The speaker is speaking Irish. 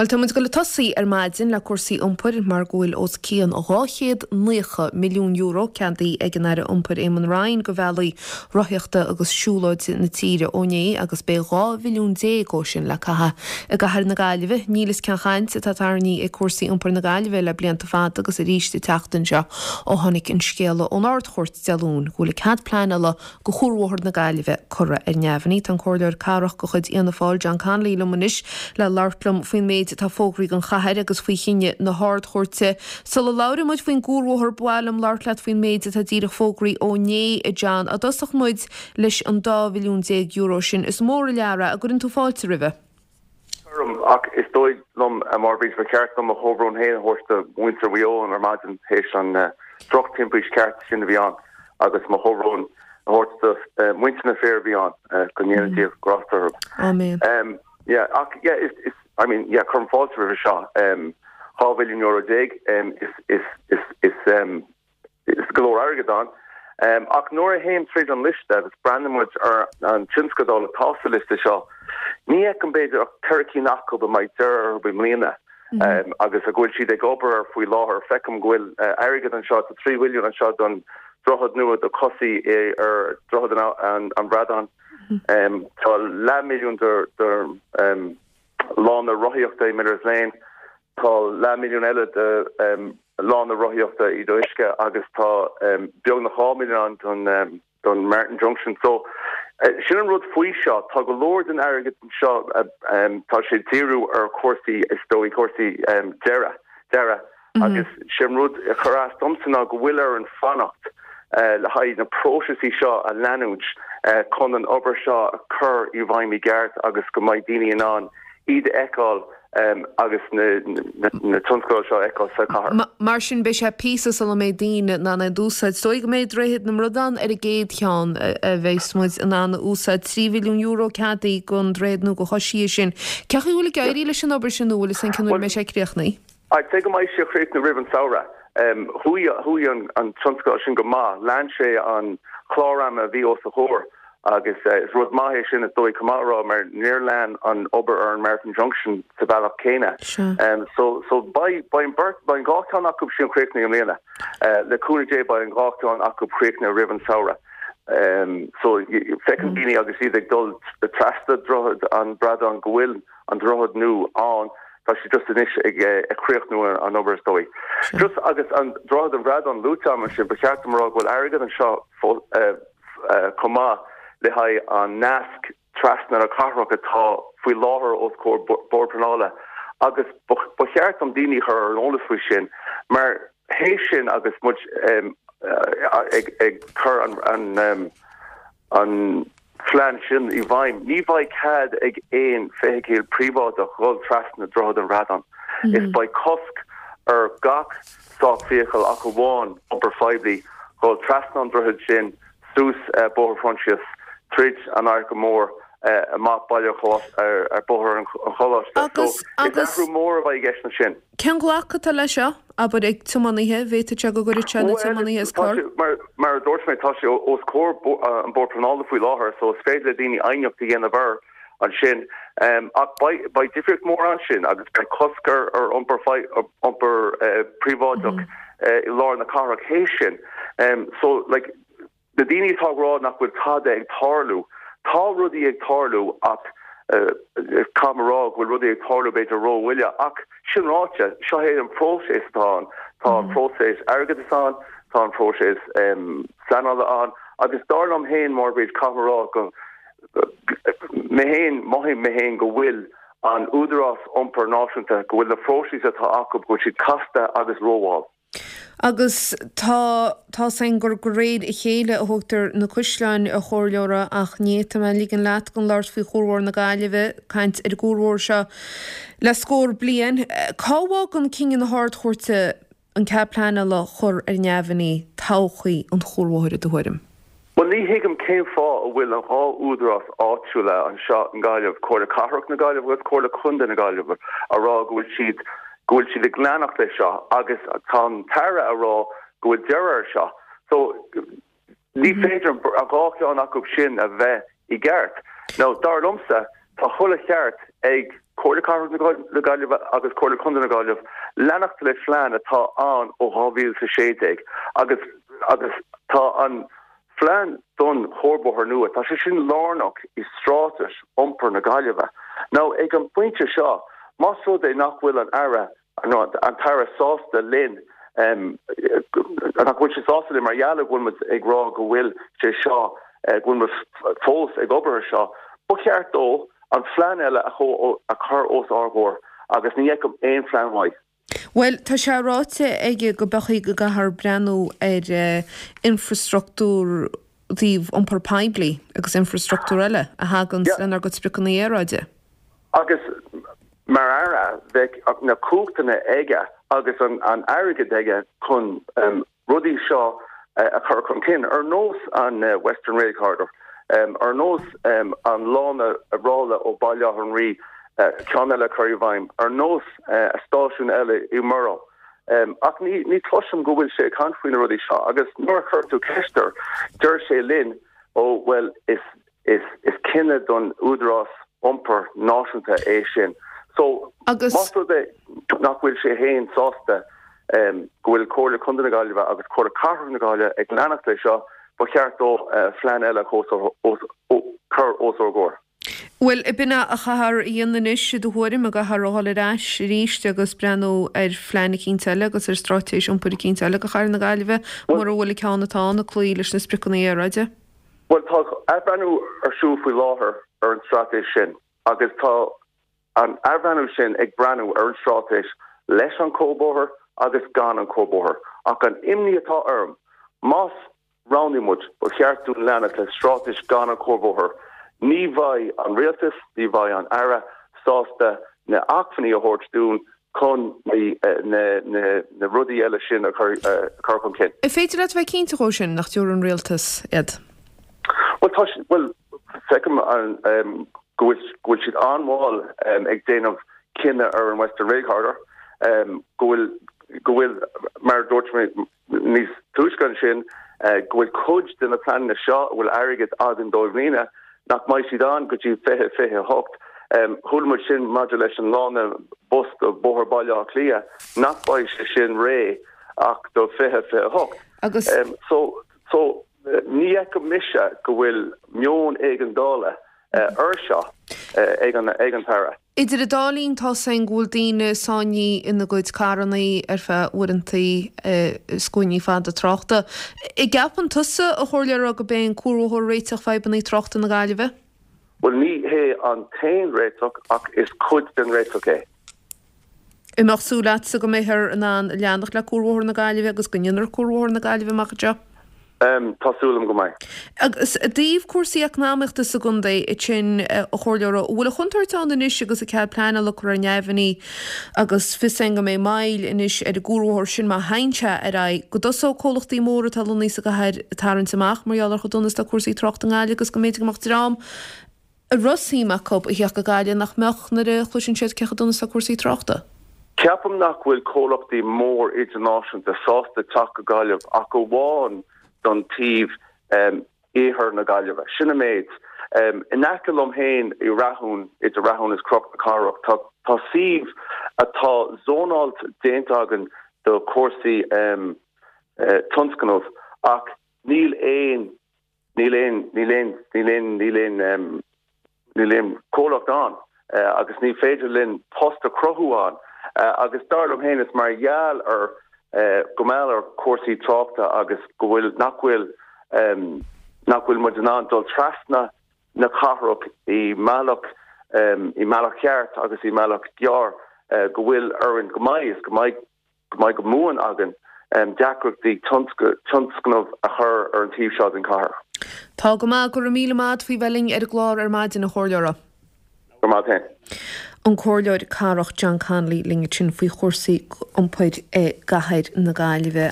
Bhuel, tá muid ag dul ag tosaí ar maidin le cúrsaí iompair mar go bhfuil os cionn €290 milliún ceadaithe ag an Aire Iompair Eamon Ryan do bhealaí rothaíochta agus siúlóide na tíre ó inné agus beidh 12 mhilliún dhó sin le caitheamh i gcathair na Gaillimhe. Níl fhios cén chaint atá tarraingthe ag cúrsaí iompair na Gaillimhe le blianta fada agus arís an tseachtain seo ó tháinig an scéala ón Ard-Chúirt Dé Luain go bhfuil an cead pleanála go Chuarbhóthar na Gaillimhe curtha ar neamhní. Tá an Comhairleoir Cathrach de chuid Fhianna Fáil, John Connolly liom anois le labhairt liom faoin méid atá fógraithe don chathair agus faoi chinneadh na hArd-Chúirte. Sula labhraíonn muid faoin gCuarbhóthar, ba mhaith liom labhairt leat faoin méid atá díreach fógraithe ó inné, a John. I dtosach muid leis an €12 mhilliún sin. Is mór an lear é. An gcuireann tú fáilte roimhe? Cuirim, ach is dóigh liom, a Mháire Bríd, ba cheart dom mo chomhbhrón féin a thabhairt do mhuintir Mhaigh Eo ar maidin théis an drochtimpiste ceart sin a bhí ann agus mo chomhbhrón a thabhairt do mhuintir na fir a bhí ann, go ndéana Dia grásta orthu. Amen. Yeah, ach yeah, is, is, I mean, yeah, cuirim fáilte roimhe seo. €12 mhilliún, is, is, is, is, Is go leor airgead ann. Ach nuair a théim tríd an liosta agus breathnaíonn muid ar an tionscadal atá sa liosta seo, ní fheicim b'fhéidir ach 4 cinn acu a mbeidh deireadh orthu i mbliana agus a go bhfuil siad ag obair air faoi láthair. Feicim go bhfuil airgead anseo, tá 3 mhilliún anseo don droichead nua do chosaí ar Dhroichead an Bhradáin. Tá leathmhilliún do lána rothaíochta i Miller's Lane. Tá leathmhilliún eile do lána rothaíochta i Uisce agus tá beagnach 2 mhilliún ann don Martin Junction. So, sin an rud faoi seo, tá go leor den airgead seo, tá sé ag díriú ar chúrsaí, is dóigh, cúrsaí dearaidh, dearadh agus sin rud a chuir as domsa ná go bhfuil orainn fanacht le haghaidh na próiseasaí seo a leanúint chun an obair seo a chur i bhfeidhm i gceart agus go mbeidh daoine in ann iad a fheiceáil agus na tionscadail seo a fheiceáil sa chathair. Mar sin, beidh sé píosa sula mbeidh daoine in ann iad a úsáid. Is dóigh go mbeidh Droichead na mBradán ar an gcéad cheann a bheas muid in ann a úsáid. €3 mhilliún ceadaithe don droichead nua do choisithe sin. Cén chaoi a bhfuil ag éirí leis an obair sin nó bhfuil fhios againn cén uair a mbeidh sé críochnaithe? I'd say go mbeidh sé críochnaithe roimh an samhradh. Chuaigh chuaigh an tionscadal sin go maith. Lean sé an clár ama a bhí os a chomhair agus is rud maith é sin is dóigh chomh maith a rá mar níor lean an obair ar an Martin Junction sa bhealach céanna. So so beidh beidh an beirt beidh an dhá cheann acu sin críochnaithe i mbliana. Le cúnamh Dé beidh an dhá cheann acu críochnaithe roimh an samhradh. So feiceann daoine agus iad ag dul trasna Droichead an Bhradáin go bhfuil an droichead nua ann, tá sé just anois ag críochnú an obair is dóigh. Just agus an Droichead an Bhradáin luaite agam ansin, ba cheart dom a rá go bhfuil airgead anseo chomh maith le haghaidh an nasc trasna na cathrach atá faoi láthair os comhair Bord Pleanála agus ba cheart dom daoine a chur ar an eolas faoi sin mar théis sin agus muid ag cur an an phlean sin i bhfeidhm, ní bheidh cead ag aon feithicil príobháideach dhul trasna Droichead an Bhradáin. Is beidh cosc ar gach státfheithicil ach amháin iompar phoiblí dhul trasna an droichid sin suas Bóthar Phroinsias, tríd an Fhairche Mhór, amach Baile ar Bóthar an Choláiste. So, is athrú mór a bheidh i gceist ansin. Cén glacadh atá leis seo, abair, ag tiománaithe? An bhféadfadh sé go gcuirfeadh sé na tiománaithe as cor? Mar a dúirt mé, tá sé os comhair an Bord Pleanála faoi láthair, so is féidir le daoine aighneacht a dhéanamh air ansin. Ach beidh difríocht mhór ansin agus beidh cosc ar iompar príobháideach i lár na cathrach théis sin. So, like, Na daoine atá ag rá nach bhfuil tada ag tarlú, tá rudaí ag tarlú ach caithfidh mé a rá go bhfuil rudaí ag tarlú b'fhéidir rómhoille. Ach sin ráite, seo é an próiseas atá ann. Tá an próiseas airgeadais ann, tá an próiseas pleanála ann agus dar liom féin, Máire Bríd, caithfidh mé a rá go mé féin, mothaím mé féin go bhfuil an Údarás Iompair Náisiúnta, go bhfuil na próisis atá acu, go bhfuil siad casta agus rómhall. Agus tá, tá's againn gur de réir a chéile a thógtar na caisleáin, a Chomhairleora, ach ní fhéadfaidh mé ligean leat gan labhairt faoi Chuarbhóthar na Gaillimhe, caint ar an gCuarbhóthar seo le scór bliain. Cá bhfágann cinneadh na hArd-Chúirte an cead pleanála a chur ar neamhní todhchaí an Chuarbhóthair i do thuairim? Bhuel, ní thuigim cén fáth a bhfuil an dhá údarás áitiúla anseo i nGaillimh, Comhairle Cathrach na Gaillimhe agus Comhairle Contae na Gaillimhe, a rá go bhfuil siad go bhfuil siad ag leanacht leis seo agus tá an tAire a rá go bhfuil deireadh air seo. So, ní féidir an dhá cheann acu sin a bheith i gceart. Now, dar liomsa, tá chuile cheart ag. Comhairle Cathrach na Gaillimhe agus Comhairle Contae na Gaillimhe leanacht le phlean atá ann ó 2016 agus agus tá an phlean don chuarbhóthar nua, tá sé sin lárnach i straitéis iompair na Gaillimhe. Now ag an bpointe seo, más rud é nach bhfuil an Aire an tAire sásta linn, nach bhfuil sé sásta linn mar gheall go bhfuil muid ag rá go bhfuil sé seo, go bhfuil muid fós ag obair ar seo. Ba cheart dó an phlean eile a chur os ár gcomhair agus ní fheicim aon phlean uaidh. Bhuel, tá sé ráite aige go mbeidh go gcaithfear breathnú ar infreastruchtúr taobh iompar poiblí agus infreastruchtúr eile a thaganns lenár gcuid spriocanna aeráide. Agus mar Aire, bheadh na cumhachtanna aige agus an airgead aige chun rudaí seo a chur chun cinn, ar nós an Western Rail Corridor, ar nós an lána ráille ó Baile Átha an Rí, ceann eile a chur i bhfeidhm, ar nós stáisiún eile i Murroe. Ach ní chloisim go bhfuil sé ag caint faoi na rudaí seo agus nuair a chuir tú ceist air, deir sé linn, ó bhuel, is Is cinneadh don Údarás Iompair Náisiúnta é sin. So, más rud é nach bhfuil sé féin sásta go bhfuil Comhairle Contae na Gaillimhe agus Comhairle Cathrach na Gaillimhe ag leanacht leis seo, ba cheart dó phlean eile a chur os ár gcomhair. Bhuel, b'in é a chaithfear a dhéanamh anois, i do thuairim, an gcaithfear a dhul ar ais arís agus breathnú ar phlean eicínt eile agus ar straitéis iompair eicínt eile do chathair na Gaillimhe, mura bhfuil an ceann atá ann ag cloí leis na spriocanna aeráide? Bhuel, tá athbhreithniú ar siúl faoi láthair ar an straitéis sin agus tá an athbhreithniú sin ag breathnú ar an straitéis leis an cuarbhóthar agus gan an cuarbhóthar. Ach an imní atá orm, más roghnaíonn muid, ba cheart dúinn leanacht le straitéis gan an cuarbhóthar, ní bheidh an rialtas, ní bheidh an Aire sásta na acmhainní a thabhairt dúinn chun na rudaí eile sin a chur chun cinn. An féidir leat a bheith cinnte dhó sin, nach dtabharfaidh an rialtas iad? Bhuel, tá, bhuel, feicim go bhfuil, go bhfuil siad an-mhall ag déanamh cinneadh ar an Western Rail Corridor, go bhfuil, go bhfuil, mar a dúirt mé, Níos túisce ansin, go bhfuil cuid de na pleananna seo a bhfuil airgead againn dóibh i mbliana, nach mbeidh siad ann go dtí 2028. Chuala muid sin maidir leis an lána bus do Bhóthar Bhaile Átha Cliath, nach mbeidh sé sin réidh ach do 2028. Agus. So, so, ní fheicim mise go bhfuil meon éigeandála air seo ag an, ag an tAire. Idir an dá linn tá 's againn go bhfuil daoine sáinnithe ina gcuid carrannaí ar feadh uaireantaí i scuainí fada tráchta. An gceapann tusa, a Chomhairleora, go b'é an cuarbhóthar réiteach fadhbannaí tráchta na Gaillimhe? Bhuel, ní hé an t-aon réiteach ach is cuid den réiteach é. An mbeadh súil agatsa go mbeifear in ann leanacht le Cuarbhóthar na Gaillimhe agus go ndéanfar Cuarbhóthar na Gaillimhe amach anseo? Tá súil agam go mbeidh. Agus i dtaobh cúrsaí eacnamaíochta sa gcontae ansin, a Chomhairleora, an bhfuil an chontúirt ann anois agus an cead pleanála curtha ar neamhní agus fios againn go mbeidh moill anois ar an gcuarbhóthar sin má théann sé ar aghaidh, go dtosóidh comhlachtaí móra atá lonnaithe sa gcathair ag tarraingt amach mar gheall ar chomh dona is atá cúrsaí tráchta i nGaillimh agus go mb'fhéidir go mbeadh dream a raibh suim acu a theacht go Gaillimh nach mbeadh nuair a chloiseann siad cé chomh dona is atá cúrsaí tráchta. Ceapaim nach bhfuil comhlachtaí mór idirnáisiúnta sásta teacht go Gaillimh ach amháin don taobh iarthar na Gaillimhe. Sin an méid. In aice liom féin i Rathún, idir Rathún is Cnoc na Cathrach, tá tá suíomh atá zónáilte déanta againn do chúrsaí tionscnamh ach níl aon Níl aon, níl aon, níl aon, níl aon, níl aon comhlacht ann agus ní féidir linn post a chruthú ann agus dar liom féin is mar gheall ar go mall ar chúrsaí tráchta agus go bhfuil, nach bhfuil, nach bhfuil muid in ann dul trasna na cathrach i mbealach, i mbealach ceart agus i mbealach gearr go bhfuil orainn go mbeidh is go mbeidh go mbeidh go buan againn deacrachtaí tionscnamh a chur ar an taobh seo den chathair. Tá go maith. Go raibh míle maith agat faoi bheith linn ar an gclár ar maidin, a Chomhairleora. Go raibh maith agat féin. An Comhairleoir Cathrach John Connolly linn ansin faoi chúrsaí iompair i gcathair na Gaillimhe.